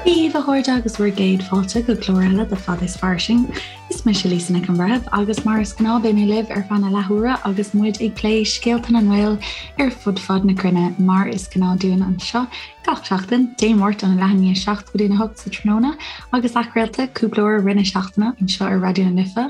Dia daoibh a chairde agus bhur gcéad fáilte go clár eile de Fada is Fairsing. Is mise Lisa Nic an Bhreithimh agus mar is gnáth beidh mé libh ar feadh na leathuaire agus muid ag plé scéalta na nGael ar fud fad na cruinne mar is gnáth dúinn anseo gach seachtain, Dé Máirt óna leath i ndiaidh 7 go dtí a 8 sa tráthnóna agus athchraolta cúpla uair i rith na seachtaine anseo ar Raidió na Life,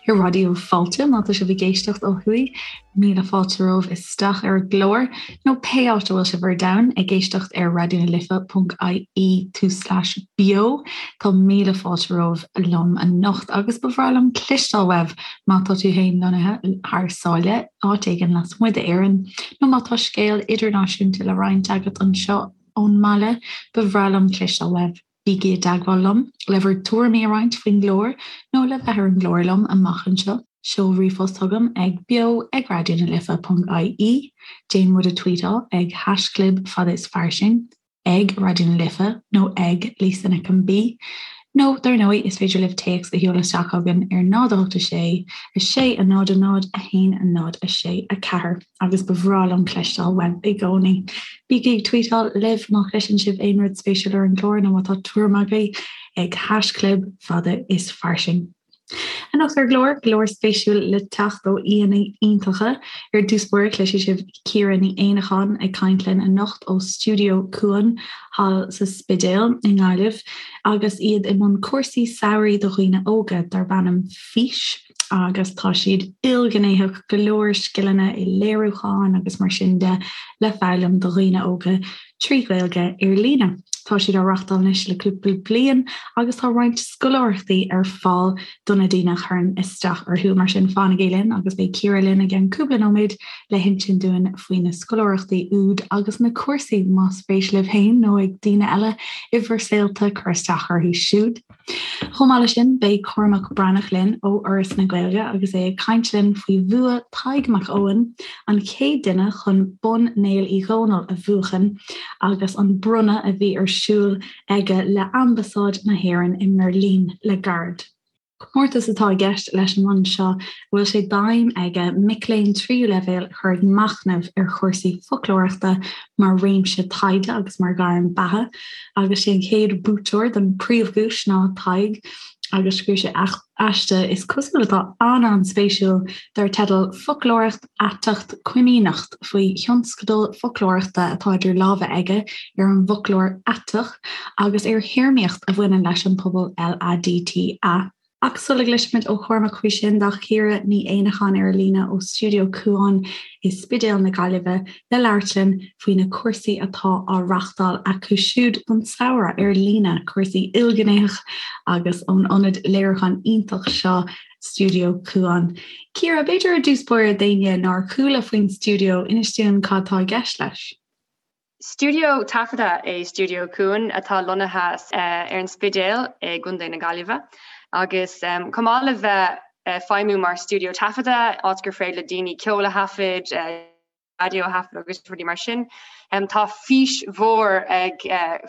ar Raidió Fáilte má tá sibh ag éisteacht ó thuaidh. Míle fáilte romhaibh isteach ar an gclár, nó pé áit a bhfuil sibh ar domhan ag éisteacht ar raidionalife.ie tulslais beo. Tá míle fáilte romhaibh liom anocht agus ba bhreá liom cloisteáil uaibh má tá tú féin lonnaithe thar sáile, áit éigin lasmuigh d'Éirinn, nó má tá scéal idirnáisiúnta le roinnt agat anseo ón mbaile, ba bhreá liom cloisteáil uaibh. Bígí i dteagmháil liom le bhur dtuairimí a roinnt faoin gclár nó le bheith ar an gclár liom amach anseo. Seol ríomhphost chugam ag beo ag raidionalife.ie, déan muid a tweetáil ag haischlib fada is fairsing, ag Raidió na Life nó ag Lisa Nic an B. Nó, dar ndóigh, is féidir libh téacs a sheoladh isteach chugainn ar 0 8 6 6 0 0 1 0 6 4. Agus ba bhreá liom cloisteáil uaibh i gcónaí. Bígí ag tweetáil libh má chloiseann sibh aon rud spéisiúil ar an gclár nó má tá tuairim agaibh ag haischlib fada is fairsing. Anocht ar an gclár, go leor spéisiúil le teacht ó aíonna iontacha. Ar dtús báire cloisfidh sibh Ciara Ní Éanacháin ag caint linn anocht ó Stiúideo Cuan thall sa Spidéal i nGaillimh agus iad i mbun cúrsaí samhraidh do dhaoine óga darb ainm Fís. agus tá siad ilghnéitheach, go leor scileanna i léiriúchán agus mar sin de le foghlaim do dhaoine óga trí Ghaeilge ar líne. Tá siad á reachtáil anois le cúpla bliain agus tá roinnt scoláireachtaí ar fáil do na daoine a chuireann isteach orthu. Mar sin fanaigí linn agus beidh Ciara linn i gceann cúpla nóiméad le hinsint dúinn faoi na scoláireachtaí úd agus na cúrsaí más spéis libh féin nó ag daoine eile i bhur saolta cur isteach orthu siúd. Chomh maith leis sin, beidh Cormac Breathnach linn ó Fhoras na Gaeilge agus é ag caint linn faoi bhua Tadhg Mac Eoin, an chéad duine chun Bonn Néill Uí Dhónaill a bhuachan, agus an bronnadh a bhí ar siúl aige le Ambasáid na hÉireann i mBeirlín le gairid. Comórtas atá i gceist leis an mbonn seo a bhfuil sé d'aidhm aige mic léinn tríú leibhéal a chur ag machnamh ar chúrsaí foclóireachta mar réimse taighde agus mar ghairm beatha. Agus sé an chéad bhuaiteoir don príomhdhuais ná Tadhg agus scríobh sé aiste is cosúil atá an-an-spéisiúil dar teideal 'Foclóireacht Aiteacht Coimíneacht' faoi thionscadal foclóireachta atá idir lámha aige ar an bhfoclóir aiteach agus ar théarmaíocht a bhaineann leis an pobal LADTA. Ach sula gcloisfimid ó Chormac faoi sin, tá Ciara Ní Éanacháin ar an líne ó Stiúideo Cuan i Spidéal na Gaillimhe le labhairt linn faoi na cúrsaí atá á reachtáil acu siúd don samhradh ar líne, cúrsaí ilghnéitheach agus ón ionad léiriúcháin iontach seo, Stiúideo Cuan. Ciara, b'fhéidir ar dtús báire d'éinne nár chuala faoin stiúideo, inis dúinn cad tá i gceist leis. Stiúideo taifeadta é Stiúideo Cuan atá lonnaithe ar an Spidéal i gContae na Gaillimhe agus chomh maith le bheith ag feidhmiú mar stiúideo taifeadta, áit gur féidir le daoine ceol a thaifead, raidió a thaifead agus rudaí mar sin, tá fís mhór ag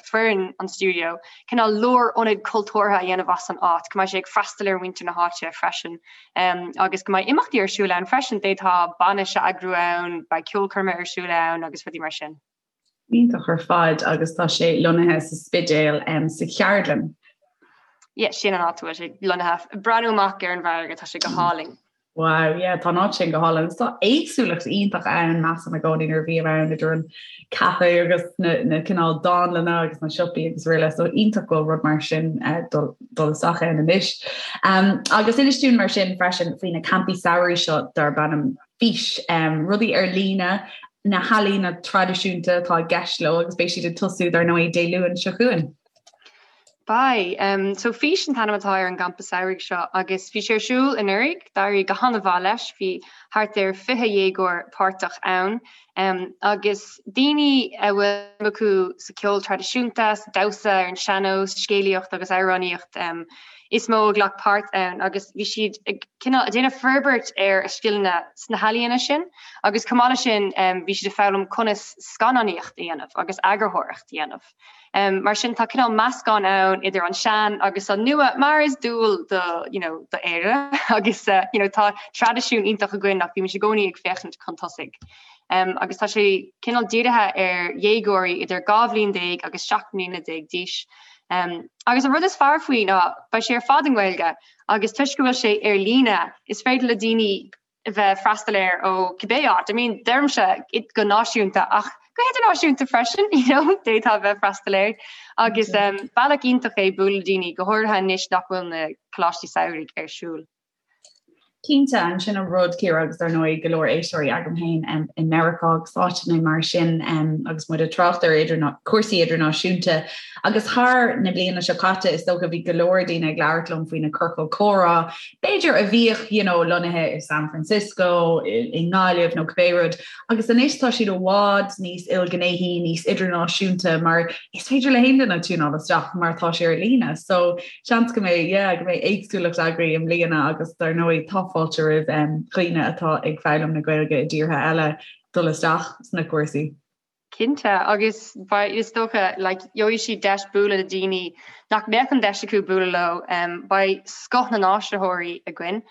foireann an stiúideo cineál lárionad cultúrtha a dhéanamh as an áit, go mbeidh sé ag freastal ar mhuintir na háite freisin. Agus go mbeidh imeachtaí ar siúl ann freisin, d'fhéadfá bainis a eagrú ann, beidh ceolchoirme ar siúl ann agus rudaí mar sin. Iontach ar fad agus tá sé lonnaithe sa Spidéal sa Cheardlann. Yeah, sin an áit a bhfuil sé lonnaithe. Breathnú amach ar an bhfarraige, tá sé go hálainn. Wow, yeah, tá an áit sin go hálainn. Agus tá éagsúlacht iontach ann, measaim i gcónaí nuair a bhím ann idir an caife agus na, na cineál dánlanna agus na siopaí agus araile, so iontach go bhfuil rud mar sin uh, dul, dul isteach ann anois. Um, agus inis dúinn mar sin freisin faoi na campaí samhraidh seo darb ainm Fís, um, rudaí ar líne, na healaíona traidisiúnta atá i gceist leo agus beidh siad ag tosú dar ndóigh Dé Luain seo chugainn. Beidh. So Fís an t-ainm atá ar an gcampa samhraidh seo agus bhí sé ar siúl anuraidh, d'éirigh go han-mhaith leis, bhí thart ar 20 dhéagóir páirteach ann agus daoine a bhfuil suim acu sa cheol traidisiúnta, sa damhsa ar an sean-nós, scéalaíocht agus amhránaíocht is mó a ghlac páirt ann agus bhí siad ag cineál ag déanamh forbairt ar a scileanna sna healaíona sin agus chomh maith leis sin bhí siad ag foghlaim conas scannánaíocht a dhéanamh agus eagarthóireacht a dhéanamh. Mar sin tá cineál meascán ann idir an sean agus an nua mar is dual do you know do Éire agus you know tá traidisiún iontach againn ach bímid i gcónaí ag féachaint chun tosaigh. Um, agus tá sé cineál dírithe ar dhéagóirí idir 12 bhliain agus 17 mbliana d'aois. Agus an rud is fearr faoi ná beidh sé ar fad i nGaeilge agus toisc go bhfuil sé ar líne is féidir le daoine a bheith ag freastal air ó cibé áit. I mean, deirimse go náisiúnta ach go hidirnáisiúnta freisin, you know, d'fhéadfá a bheith ag freastal air. Agus bealach iontach é bualadh le daoine, go háirithe anois nach bhfuil na coláistí samhraidh ar siúl. Cinnte, an sin an rud, Ciara, agus dar ndóigh go leor éisteoirí agam féin i Meiriceá agus áiteanna mar sin agus muid ag trácht ar cúrsaí idirnáisiúnta agus thar na bliana seo caite is dócha bhí go leor daoine ag labhairt liom faoi na ciorcail comhrá b'fhéidir a bhíodh you know lonnaithe i San Francisco, i nGaillimh nó cibé rud agus anois tá siad i bhfad níos ilghnéithí, níos idirnáisiúnta mar is féidir le haon duine tiúnáil isteach mar tá sé ar líne. So seans go mbeidh, yeah, go mbeidh éagsúlacht agaibh i mbliana agus dar ndóigh tá fáilte roimh dhaoine atá ag foghlaim na Gaeilge i dtíortha eile dul isteach sna cúrsaí. Cinnte, agus beidh, is dócha, like, gheobhaidh siad deis bualadh le daoine nach mbeadh an deis acu bualadh leo. Beidh scoth na n-áisitheoirí againn,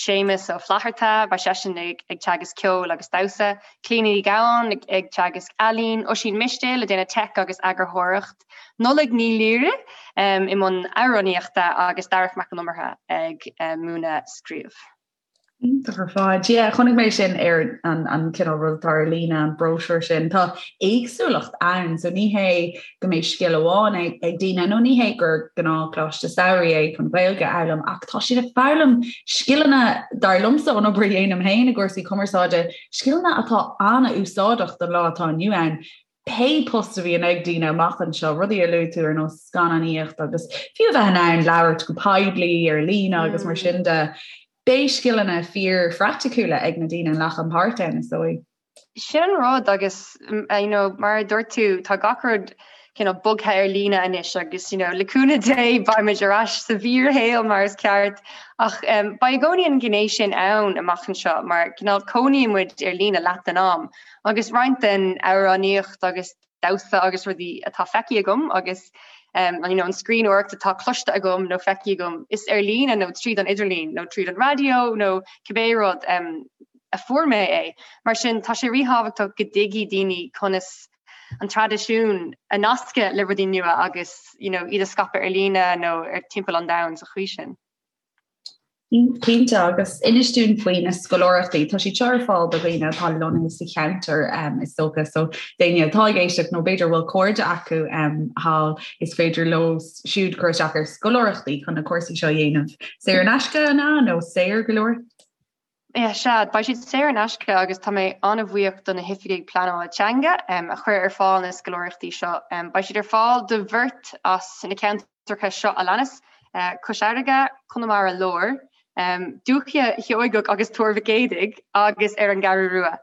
Séamus Ó Flatharta, beidh seisean ag teagasc ceoil agus damhsa, Clíona Ní Ghabháin ag teagasc ealaín, Oisín Mistéil ag déanamh teic agus eagarthóireacht, Nollaig Ní Laoire i mbun amhránaíochta agus Darach Mac Con Iomaire ag múineadh scríobh. Iontach ar fad. Yeah, chonaic mé sin ar an, an cineál rud atá ar líne, an bróisiúr sin. Tá éagsúlacht ann, so ní hé go mbeidh scil amháin ag, ag daoine, nó ní hé gur gnáthcholáiste samhraidh é chun Gaeilge a fhoghlaim, ach tá siad ag foghlaim scileanna, dar liomsa, ón obair a dhéanaim féin i gcúrsaí cumarsáide, scileanna atá an-úsáideach don lá atá inniu ann. pé post a bhíonn ag daoine amach anseo, rudaí a luaigh tú ar nós scannánaíocht agus fiú a bheith in ann labhairt go poiblí ar líne agus mar sin de, beidh scileanna fíor phraiticiúla ag na daoine a nglacann páirt ann, is dóigh. Sin an rud agus you know, mar a dúirt tú, tá gach rud cineál bogtha ar líne anois agus you know, le cúnamh Dé beimid ar ais sa bhfíorshaol mar is ceart ach um, beidh i gcónaí an ghné sin ann amach anseo mar cineál cónaíonn muid ar líne leath den am Agus roinnt den amhránaíocht agus damhsa agus rudaí atá feicthe agam agus you know, an scríbhneoireacht atá cloiste agam nó feicthe agam, is ar líne nó tríd an idirlíon nó tríd an raidió nó cibé rud a fuair mé é. Mar sin, tá sé ríthábhachtach go dtuigfidh daoine conas an traidisiún a nascadh le rudaí nua agus you know, iad a scaipeadh ar líne nó ar timpeall an domhain sa chaoi sin. Cinnte, agus inis dúinn faoi na scoláireachtaí. Tá siad seo ar fáil do dhaoine atá lonnaithe sa cheantar is dócha, so daoine atá ag éisteacht nó b'fhéidir bhfuil cairde acu thall, is féidir leo siúd cur isteach ar scoláireachtaí chun na cúrsaí seo a dhéanamh. Saor in aisce, an ea, nó saor go leor? Yeah, sea, beidh siad saor in aisce agus tá mé an-bhuíoch do na hoifigigh pleanála teanga a chuir ar fáil na scoláireachtaí seo. Beidh siad ar fáil do bheirt as na ceantair ceantracha seo a leanas, Cois Fharraige, Conamara Láir, Dúiche Sheoigeach agus Tuar Mhic Éadaigh agus ar an gCeathrú Rua.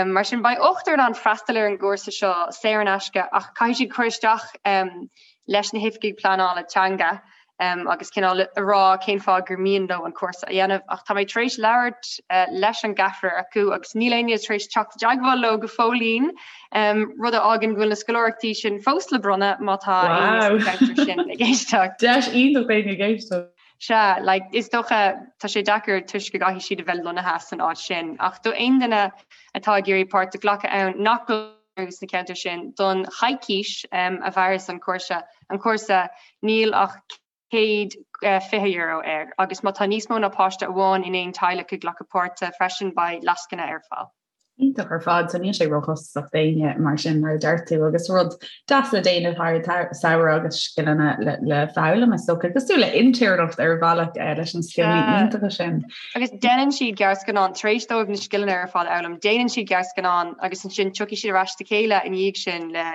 Mar sin, beidh ochtar in ann freastal ar an gcúrsa seo saor in aisce ach caithfidh siad cur isteach leis na hoifigigh pleanála teanga agus cineál a rá cén fáth gur mian leo an cúrsa a dhéanamh. Ach tá mé tar éis labhairt leis an gceathrar acu agus níl éinne tar éis teacht i dteagmháil leo go fóillín. Rud a fhágann go bhfuil na scoláireachtaí sin fós le bronnadh má tá éinne sa cheantar sin ag éisteacht. Deis iontach d'éinne ag éisteacht. Sea, like, is dócha, tá sé deacair toisc go gcaithfidh siad a bheith lonnaithe san áit sin, ach do aon duine atá ag iarraidh páirt a ghlacadh ann nach bhfuil sna ceantair sin don choicís a mhairfeas an cúrsa, an cúrsa, níl ach €120 air agus má tá níos mó ná páiste amháin in aon teaghlach ag glacadh páirte freisin beidh lascaine ar fáil. Iontach ar fad, so níl sé róchostasach d'éinne mar sin mar a deir tú agus rud deas le déanamh thar an samhradh agus scileanna le, le foghlaim is dócha cosúil le intéirneacht ar bhealach eh, leis na scileanna iontacha sin. Agus déanann siad gearrscannán tar éis dóibh na scileanna ar fad a fhoghlaim, déanann siad gearrscannán agus ansin tiocfaidh siad ar ais le chéile ina dhiaidh sin le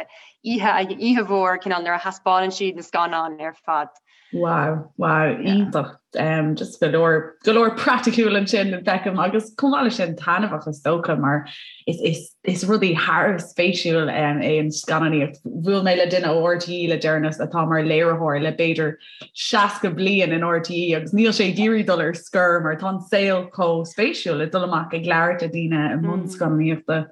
oíche, oíche mhór cineál nuair a thaispeánann siad na scannáin ar fad. Wow, wow, iontach. Um, just go leor, go leor praiticiúil ansin feicim agus chomh maith leis sin taitneamhach is dócha mar is, is, is rudaí thar spéisiúil um, é an scannánaíocht. Bhuail mé le duine ó RTÉ le deireanas atá mar léiritheoir le b'fhéidir 60 bliain in RTÉ agus níl sé ag iarraidh dul ar scor mar tá an saol chomh spéisiúil le dul amach ag labhairt le daoine i mbun mm. scannánaíochta.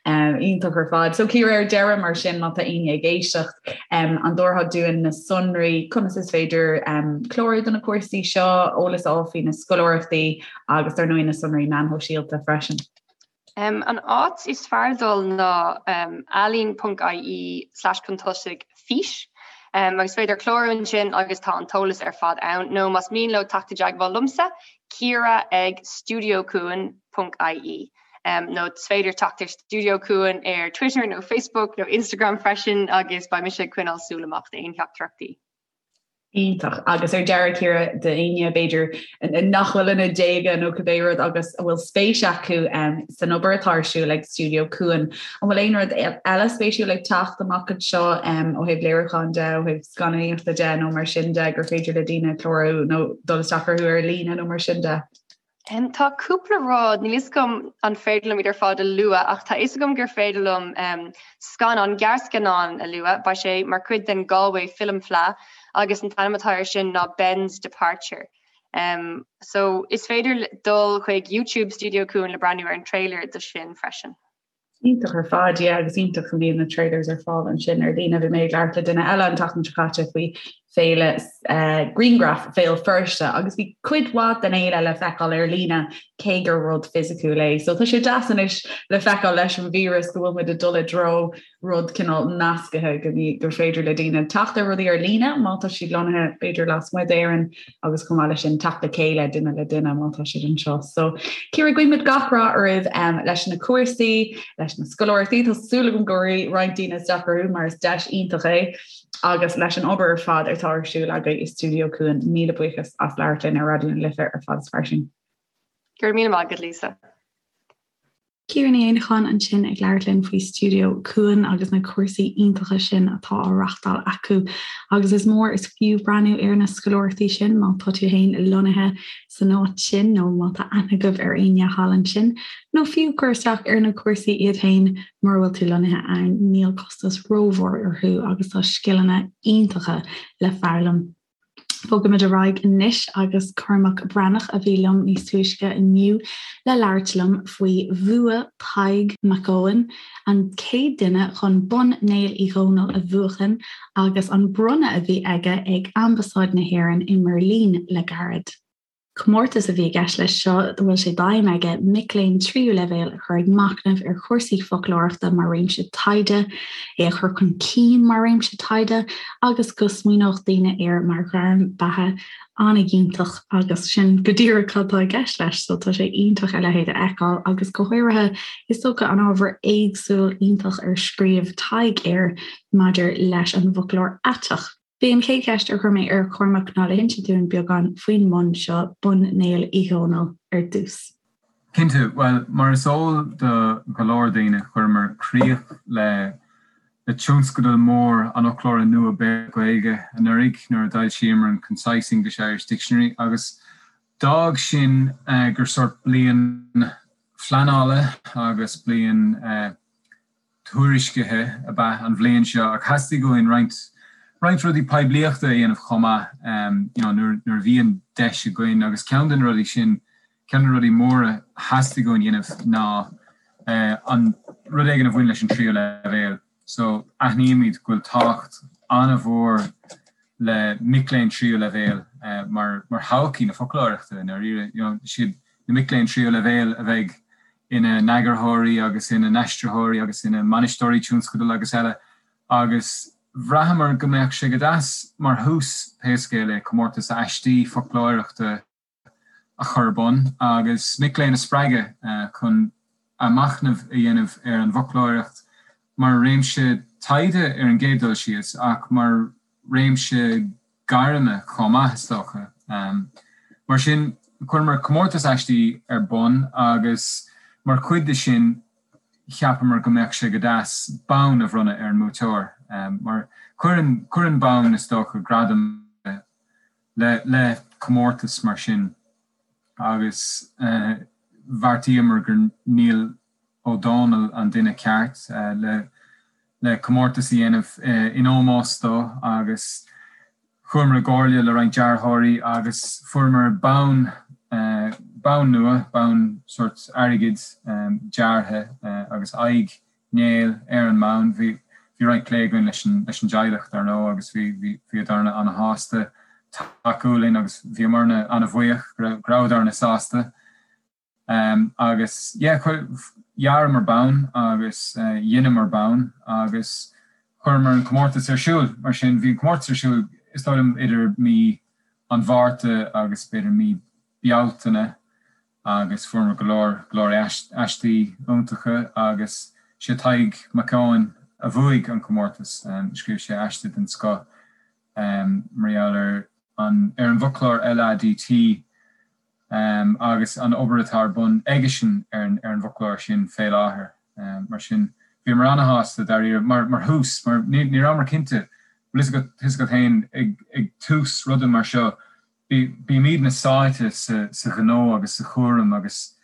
Um, iontach ar fad. So Ciara ar deireadh mar sin má tá éinne ag éisteacht um, an dtabharfá dúinn na sonraí conas is féidir um, clárú do na cúrsaí seo, eolas a fháil faoi na scoláireachtaí agus dar ndóigh na sonraí meán shóisialta freisin. Um, an áit is fearr dul ná um, ealaín.ie slash chun tosaigh fís. Agus is féidir clárú ansin agus tá an t-eolas ar fad ann, nó más mian leo teacht i dteagmháil liomsa, Ciara ag studiocuan ponc ie. Nó is féidir teacht ar Studio Cuan ar Twitter nó Facebook nó Instagram freisin agus beidh mise ag coinneáil súil amach d'aon theachtaireachtaí. Iontach. Agus ar deireadh, Ciara, d'éinne, b'fhéidir, nach bhfuil ina déaga nó cibé rud agus a bhfuil spéis acu san obair atá ar siúl ag Stiúideo Cuan, an bhfuil aon rud eile spéisiúil ag teacht amach anseo ó thaobh léiriúcháin de, ó thaobh scannánaíochta de nó mar sin de gur féidir le daoine clárú nó dul isteach orthu ar líne nó mar sin de? Tá cúpla rud, níl fhios agam an féidir liom iad ar fad a lua, ach tá fhios agam gur féidir liom scannán, gearrscannán a lua. Beidh sé mar chuid den Galway Film Fleadh agus an t-ainm atá air sin ná Ben's Departure. So is féidir dul chuig YouTube Studio Cuan le breathnú ar an trailer do sin freisin. Iontach ar fad, yeah, agus iontach go mbíonn na trailers ar fáil ansin ar líne. Bhí mé ag labhairt le duine eile an tseachtain seo caite faoi féile uh, Grianghraf Bhéal Feirste agus bhí cuid mhaith den fhéile le feiceáil ar líne cé gur rud fisiciúil é. So tá sé deas anois le feiceáil leis an víreas go bhfuil muid ag dul i dtreo rud cineál nascaithe go gur féidir le daoine teacht ar rudaí ar líne má tá siad lonnaithe b'fhéidir lasmuigh d'Éirinn agus chomh maith leis sin teacht le chéile duine le duine má tá siad anseo. So Ciara guímid gach rath oraibh um, leis na cúrsaí, leis na scoláireachtaí, tá súil agam go rachaidh roinnt daoine isteach orthu mar is deis iontach é agus leis an obair ar fad atá ar siúl agaibh i Stiúideo Cuan. Míle buíochas as labhairt linn ar Raidió na Life ar Fad is Fairsing. Go raibh míle maith agat Lisa. Ciara Ní Éanacháin ansin ag labhairt linn faoi Stiúideo Cuan agus na cúrsaí iontacha sin atá á reachtáil acu. Agus is mór is fiú breathnú ar na scoláireachtaí sin má tá tú féin lonnaithe san áit sin nó má tá aithne agaibh ar éinne thall ansin, nó fiú cur isteach ar na cúrsaí iad féin mura bhfuil tú lonnaithe ann, níl costas rómhór orthu agus tá scileanna iontacha le foghlaim. Bogaimid ar aghaidh anois agus Cormac Breathnach a bhí liom níos túisce inniu le labhairt liom faoi bhua Tadhg Mac Eoin, an chéad duine chun Bonn Néill Uí Dhónaill a bhuachan agus an bronnadh a bhí aige ag Ambasáid na hÉireann i mBeirlín le gairid. Comórtas a bhí i gceist leis seo a bhfuil sé d'aidhm aige mic léinn tríú leibhéal a chur ag machnamh ar chúrsaí foclóireachta mar réimse taighde, é a chur chun cinn mar réimse taighde agus go smaoineodh daoine air mar ghairm beatha an-fhiúntach agus sin go díreach cad tá i gceist leis so tá sé iontach a leithéid a fheiceáil agus go háirithe is dócha an ábhar éagsúil iontach ar scríobh Tadhg air maidir leis an bhfoclóir aiteach. B'é an chéad cheist a chuir mé ar Chormac ná le hinse dúinn beagán faoin mbonn seo, Bonn Néill Uí Dhónaill, ar dtús. Cinnte. Bhuel, mar is eol do go leor daoine, chuireamar críoch le le tionscadal mór an Fhoclóra Nua Béarla-Gaeilge anuraidh nuair a d'fhoilsíomar an Concise English-Irish Dictionary agus d'fhág sin gur sórt bliain phleanála agus bliain tuairiscithe ab ea an bhliain seo ach theastaigh uainn roinnt roinnt rudaí poiblíochta a dhéanamh chomh maith you know nuair nuair a bhí an deis againn agus ceann de na rudaí sin, ceann de na rudaí móra a theastaigh uainn a dhéanamh ná an rud éigin a bhain leis an tríú leibhéal. So aithnímid go bhfuil tábhacht an-mhór le mic léinn tríú leibhéal mar mar thodhchaí na foclóireachta i ndáiríre. You know, siad na mic léinn tríú leibhéal a bheidh ina n-eagarthóirí agus ina n-aistritheoirí agus ina mbainisteoirí tionscadal agus eile agus bhraitheamar go mbeadh sé go deas mar thús, pé scéal é, comórtas aistí foclóireachta a chur ar bun agus mic léinn a spreagadh chun a machnamh a dhéanamh ar an bhfoclóireacht mar réimse taighde ar an gcéad dul síos ach mar réimse gairme chomh maith, is dócha. Mar sin, chuireamar comórtas aistí ar bun agus mar chuid de sin cheapamar go mbeadh sé go deas bonn a bhronnadh ar an mbuaiteoir mar cuireann, cuireann bonn, is dócha, gradam le, le comórtas mar sin agus bheartaíomar gur Niall Ó Dónaill an duine ceart le le comórtas a dhéanamh in ómós dó agus chuamar i gcomhairle le roinnt dearthóirí agus fuaireamar bonn, bonn nua, bonn sórt airgid deartha agus aghaidh Néill ar an mbonn. Bhí bhí roinnt plé againn leis an leis an dteaghlach dar ndóigh agus bhí bhí bhíodarna ana-shásta tacú linn agus bhíomarna ana-bhuíoch go rabhadarna sásta. Agus yeah, dhearamar bonn agus dheineamar bonn agus Chuireamar an comórtas ar siúl, mar sin bhí an comórtas ar siúl is dóigh liom idir mí an Mhárta agus b'fhéidir mí Bealtaine agus fuaireamar go leor, go leor aistí iontacha agus sé Tadhg Mac Eoin a bhuaigh an comórtas. Scríobh sé aiste den scoth mar gheall ar an ar an bhfoclóir LADT agus an obair atá ar bun aigesean ar an ar an bhfoclóir sin fé láthair. Mar sin, bhíomar ana-shásta dáiríre mar mar thús, mar ní ní rabhamar cinnte, bhfuil fhios agat, fhios agat féin ag ag tús ruda mar seo, Bímidne sáite sa ghnó agus sa chúram agus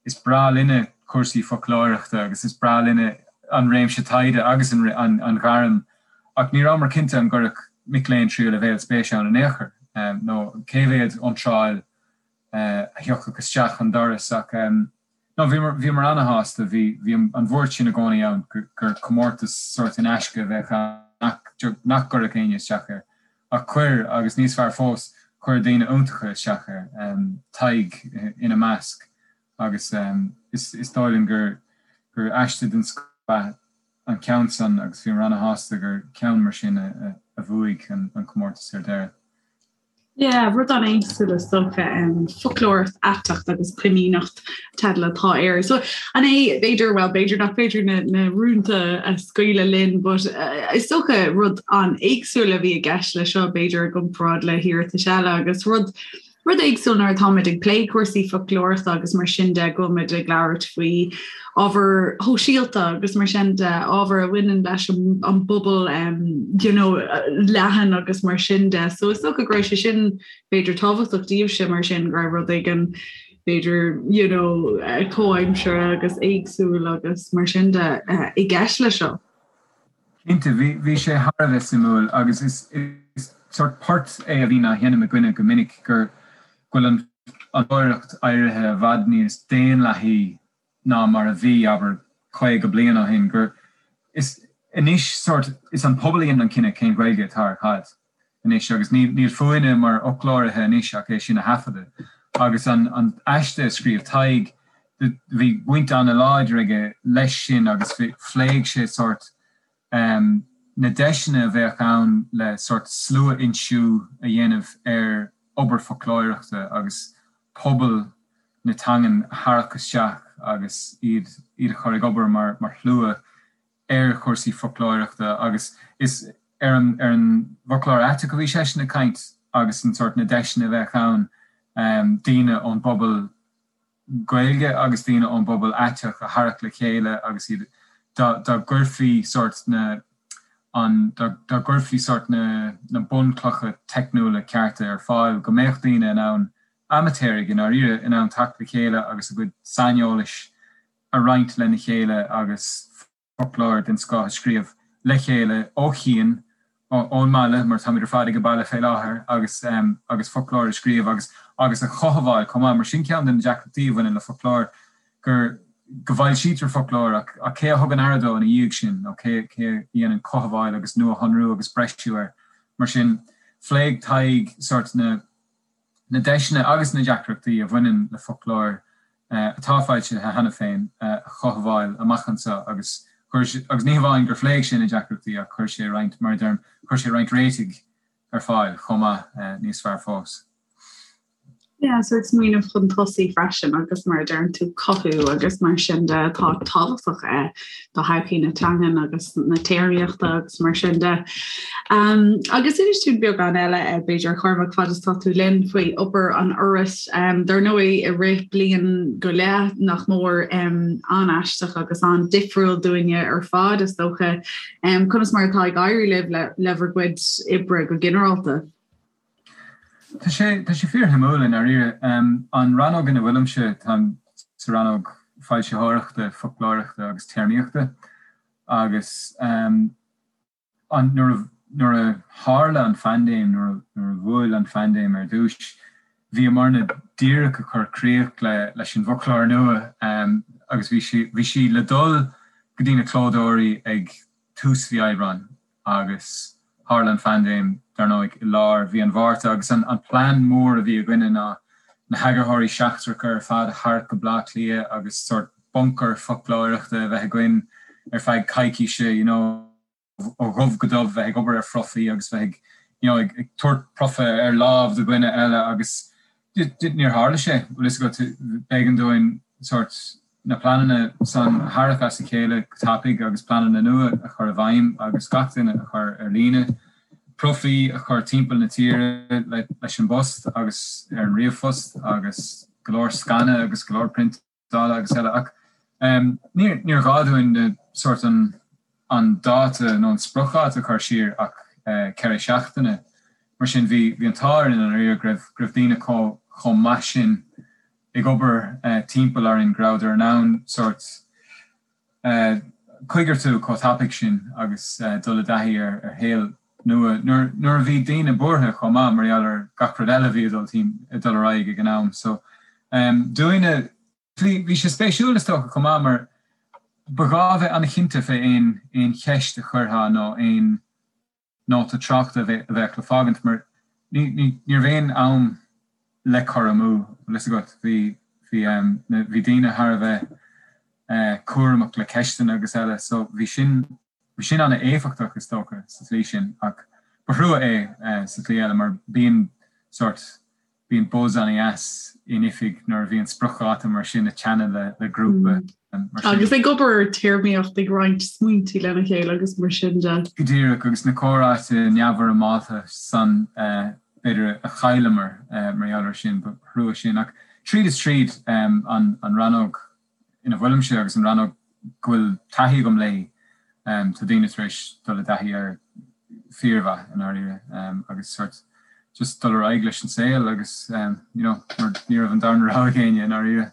is breá linne cúrsaí foclóireachta agus is breá linne an réimse taighde agus an ghairm ach ní rabhamar cinnte an gcuirfeadh mic léinn tríú leibhéal spéis ann in aon chor nó cé mhéad iontráil a thiocfadh isteach an doras ach No, bhíomar, bhíomar ana-shásta, bhí, bhí an bhuairt sin i gcónaí ann gur comórtas sórt in aisce a bheadh ann nach, nach gcuirfeadh éinne isteach air. Ach chuir, agus níos fearr fós, chuir daoine iontacha isteach air, Tadhg ina measc, agus is, is dóigh liom gur, gur aiste den scoth ab ea an ceann san agus bhíomar ana-shásta gur ceann mar sin a, a bhuaigh an, an comórtas ar deireadh. Yeah, rud an-éagsúil is dócha, foclóireacht aiteach agus coiníneacht teideal atá air. So an é b'fhéidir, well b'fhéidir nach féidir na, na rúnta a scaoileadh linn, but uh, is dócha rud an-éagsúil a bhí i gceist le seo b'fhéidir i gcomparáid le hiarratais eile agus rud Rud éagsúil nuair atáimid ag plé cúrsaí foclóireachta agus mar sin de go bhfuilmid ag labhairt faoi ábhair shóisialta agus mar sin de, ábhar a bhaineann leis an bpobal you know, leathan agus mar sin de. So is dócha go raibh sé sin b'fhéidir tábhachtach daoibhse mar sin go raibh rud éigin b'fhéidir you know, comhaimseartha agus éagsúil agus mar sin de i gceist le seo. Cinnte, bhí, bhí sé thar a bheith suimiúil agus is, is sórt port é a bhíonn á sheinm againne go minic gur, go bhfuil an fhoclóireacht éirithe i bhfad níos daonlathaí ná mar a bhí, abair, 50 bliain ó shin, gur, is, anois sórt, is an pobal a dhéanann an cinneadh cén Ghaeilge atá ar cad. anois agus níl fúinne mar fhoclóirithe anois ach é sin a thaifeadadh. Agus an aiste a scríobh Tadhg, bhí baint an-láidir aige leis sin agus phléigh sé sórt na deiseanna a bheadh ann le sórt slua-fhoinsiú a dhéanamh ar obair foclóireachta agus pobal na teangan a tharrac isteach agus iad a chur ag obair mar shlua ar chúrsaí foclóireachta agus is ar an ar an bhfoclóir aiteach a bhí seisean ag caint agus an sórt na deiseanna a bheadh ann daoine ón bpobal Gaeilge agus daoine ón bpobal aiteach a tharrac le chéile agus iad dá dá gcuirfí sórt na an dá dá gcuirfí sórt na na bunchlocha teicniúla cearta ar fáil go mbeadh daoine in ann amaitéaraigh i ndáiríre in ann teacht le chéile agus a gcuid saineolais a roinnt lena chéile agus foclóir den scoth a scríobh le chéile ó chian, ón mbaile, mar táimid ar fad ag baile fé láthair, agus agus foclóir a scríobh agus agus a chothabháil chomh maith, mar sin ceann de na deacrachtaí a bhaineann le foclóir, gur go bhfoilsítear foclóir ach ach cé a thugann aire dó ina dhiaidh sin nó cé cé a dhéanann cothabháil agus nuashonrú agus breisiú air. Mar sin, phléigh Tadhg sórt na. na deiseanna agus na deacrachtaí a bhaineann le foclóir atá foilsithe cheana féin a chothabháil amach anseo agus chuir agus ní hamháin gur phléigh sé na deacrachtaí ach chuir sé roinnt, mar a deirim, chuir sé roinnt réitigh ar fáil chomh maith, níos fearr fós. Yeah, so smaoineamh chun tosaigh freisin agus mar a deireann tú cothú agus mar sin de atá tábhachtach eh, do thodhchaí na teangan agus na téarmaíochta agus mar sin de. Um, agus inis dúinn beagán eile eh, b'fhéidir Cormac fad is tá tú linn faoi obair an Fhorais um, dar ndóigh i rith bliain go leith nach mór um, an-aisteach agus an-difriúil dúinne ar fad is dócha um, conas mar atá ag éirí libh le, le bhur gcuid oibre go ginearálta. Tá sé tá sé fíorshuimiúil i ndáiríre. An rannóg ina bhfuilimse, táim sa rannóg foilsitheoireachta, foclóireachta agus téarmaíochta agus an nuair a nuair a tharla an phaindéim, nuair a nuair a bhuail an phaindéim ar dtús, bhíomarna díreach ag cur críoch le leis an bhfoclóir nua agus bhí sí bhí sí le dul go dtí na clódóirí ag tús mhí Aibreáin. agus tharla an phaindéim, dar ndóigh, i lár mhí an Mhárta agus an plean mór a bhí againne ná na heagarthóirí seachtracha ar fad a tharrac go Baile Átha Cliath agus sórt buncar foclóireachta a bheith againn ar feadh coicíse, you know. ó dhubh go dubh bheith ag obair ar phrofaí agus bheith ag you know ag tabhairt profa ar láimh do dhuine eile agus níor tharla sé, bhfuil fhios agat, b'éigean dúinn sórt na pleananna san a tharrac as a chéile go tapaidh agus pleananna nua a chur i bhfeidhm agus gach duine a chur ar líne, profaí a chur timpeall na tíre leis an bpost agus ar an ríomhphost agus go leor scanadh agus go leor priontála agus eile ach níor ghá dúinn na sórt an an dáta nó an spriocdháta a chur siar ach 4 seachtaine. Mar sin bhí bhí an t-ádh orainn i ndáiríre go raibh go raibh daoine chomh chomh maith sin ag obair timpeall orainn go rabhadar in ann sórt coigeartú chomh tapaidh sin agus dul i dtaithí ar shaol nua nuair a bhí daoine buartha chomh maith mar gheall ar gach rud eile a bhí ag dul ar aghaidh ag an am. So dúinne, bhí sé spéisiúil is dócha chomh maith mar ba ghá bheith an-chinnte fé aon aon cheist a chuirfeá nó aon nóta tráchta a bheadh le fágaint mar ní raibh aon am le cur amú, bhfuil fhios agat. Bhí, bhí, bhí daoine thar a bheith cúramach le ceisteanna agus eile so bhí sin, bhí sin an-éifeachtach is dócha sa tslí sin ach ba thrua é sa tslí eile mar bíonn sórt, Bíonn buzz an-dheas in oifig nuair a bhíonn spriocdháta mar sin ag teannadh le le grúpa mar sin. Agus ag obair ar téarmaíocht, ag roinnt smaointe lena chéile agus mar sin de. Go díreach, agus na comhráite neamhfhoirmeálta san b'fhéidir a chailleamar mar gheall air sin, ba thrua sin. Ach tríd is tríd, an rannóg ina bhfuilimse agus an rannóg go bhfuil taithí agam léi, tá daoine tar éis dul i dtaithí air fíormhaith i ndáiríre agus sort just dul ar aghaidh leis an saol agus you know mar ní raibh an darna rogha ag éinne i ndáiríre.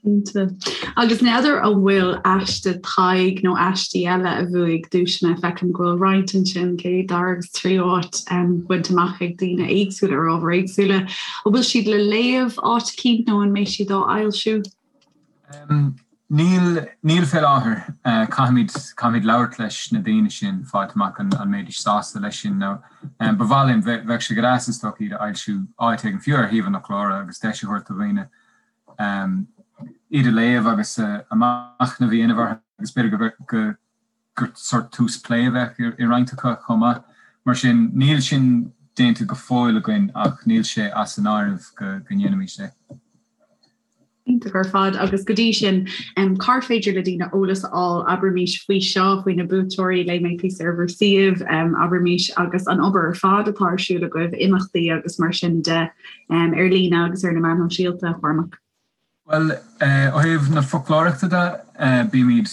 Cinnte. Agus n'fheadar an bhfuil aiste Thaidhg nó aistí eile a bhuaigh duaiseanna, feicim go bhfuil roinnt ansin, céad, dara agus tríú áit bainte amach ag daoine éagsúla ar ábhair éagsúla. An bhfuil siad le léamh áit eicínt nó an mbeidh siad á fhoilsiú? Níl, níl fé láthair. Caithfimid, caithfimid labhairt leis na daoine sin, fáilt amach an mbeidís sásta leis sin nó ba mhaith linn, bheadh sé go deas is dócha iad a fhoilsiú áit éigin, fiú ar shuíomh an fhoclóra agus deis a thabhairt do dhaoine iad a léamh agus a machnamh a dhéanamh orthu agus b'fhéidir go, go, gur sórt tús plé a bheadh i roinnt acu chomh maith. Mar sin, níl sin déanta go fóill againn ach níl sé as an áireamh go ndéanfaimis é. Iontach ar fad. Agus go dtí sin, cár féidir le daoine eolas a fháil, abraimis, faoi seo, faoi na buaiteoirí, léigh mé píosa ar bhur suíomh, abraimis, agus an obair ar fad atá ar siúl agaibh, imeachtaí agus mar sin de, ar líne agus ar na meáin shóisialta, a Chormaic? Bhuel, ó thaobh na foclóireachta de, bímid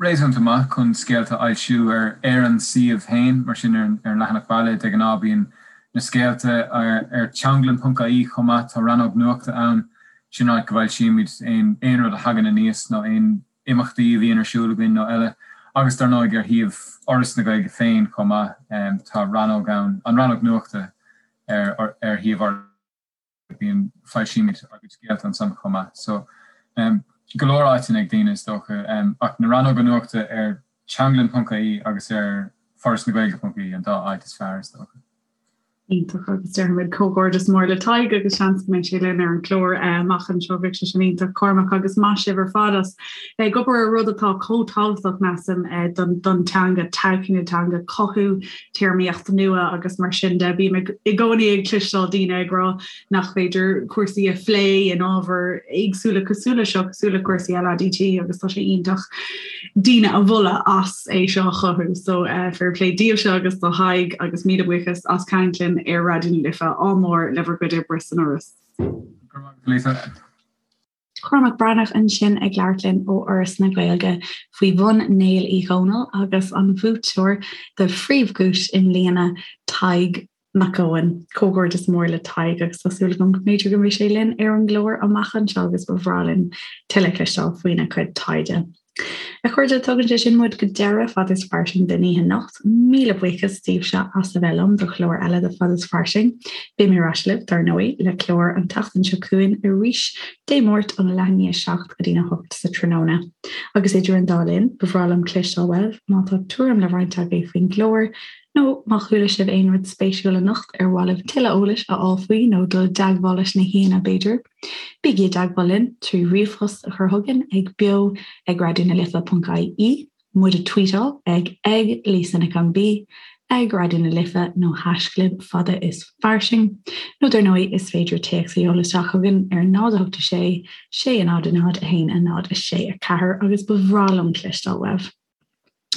réasúnta maith chun scéalta a fhoilsiú ar ar an suíomh féin, mar sin ar an leathanach baile de ghnáth bíonn na scéalta ar teanglann.ie chomh maith, tá rannóg nuachta ann, sin áit go bhfoilsímid aon aon rud a thagann aníos nó aon imeachtaí a bhíonn ar siúl againn nó eile. Agus dar ndóigh ar shuíomh Fhoras na Gaeilge féin chomh maith, tá rannóg ann, an rannóg nuachta ar ar shuíomh Fhoras. bíonn, foilsímid ár gcuid scéalta ansan chomh maith. So, go leor áiteanna ag daoine is dócha, ach na rannóga nuachta ar teanglann.ie agus ar forasnagaeilge.ie an dá áit is fearr is dócha. Iontach agus déarfaimid comhghairdeas mór le Tadhg agus seans go mbeidh sé linn ar an gclár amach anseo, bheadh sé sin iontach Cormac agus maith sibh ar fad as bheith ag obair ar rud atá chomh tábhachtach measaim don don teanga, todhchaí na teanga, cothú téarmaíocht nua agus mar sin de. Bím i gcónaí ag cloisteáil daoine ag rá nach féidir cúrsaí a phlé in ábhair éagsúla cosúil le seo, cosúil le cúrsaí LADT agus tá sé iontach daoine a mholadh as é seo a chothú. So uh, fair play daoibhse agus do Thadhg agus míle buíochas as caint linn ar Raidió na Life. Ádh mór le bhur gcuid oibre san Fhoras. Lisa. Cormac Breathnach ansin ag labhairt linn ó Fhoras na Gaeilge faoi bhonn Néill Uí Dhónaill agus an bhuaiteoir do phríomhdhuais i mbliana, Tadhg Mac Eoin. Comhghairdeas mór le Tadhg agus tá súil agam go mb'fhéidir go mbeidh sé linn ar an gclár amach anseo agus ba bhreá linn tuilleadh cloisteáil faoina chuid taighde. A chairde, tugann sé sin muid go deireadh Fad is Fairsing don oíche anocht. Míle buíochas daoibhse as a bheith liom do chlár eile de Fad is Fairsing. Beidh mé ar ais libh, dar ndóigh, le clár an tseachtain seo chugainn arís Dé Máirt óna leath i ndiaidh 7 go dtína 8 sa tráthnóna. Agus idir an dá linn, ba bhreá liom cloisteáil uaibh má tá tuairim le roinnt agaibh faoin gclár, nó má chuala sibh aon rud spéisiúil anocht ar mhaith libh tuilleadh eolais a fháil faoi nó dul i dteagmháil leis na haíonna b'fhéidir. Bígí i dteagmháil linn trí ríomhphost a chur chugainn ag beo ag raidionalife.ie. muid a tweetáil ag ag Lisa Nic an B, ag Raidió na Life nó haischlib fada is fairsing. Nó dar ndóigh is féidir téacs a sheoladh isteach chugainn ar 0 8 6 6 0 0 1 0 6 4 agus ba bhreá liom cloisteáil uaibh.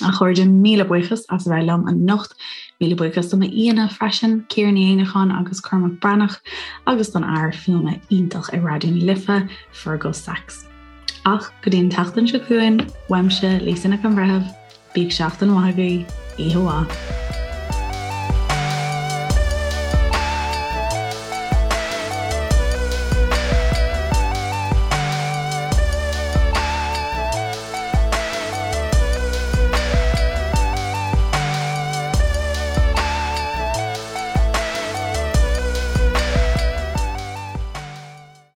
A chairde, míle buíochas as a bheith liom anocht. Míle buíochas do m'aíonna freisin, Ciara Ní Éanacháin agus Cormac Breathnach, agus don fhear fuaime iontach i Raidió na Life, Fergal Sachs. Ach go dtí an tseachtain seo chugainn, uaimse, Lisa Nic an Bhreithimh, bíodh seachtain mhaith agaibh, oíche mhaith.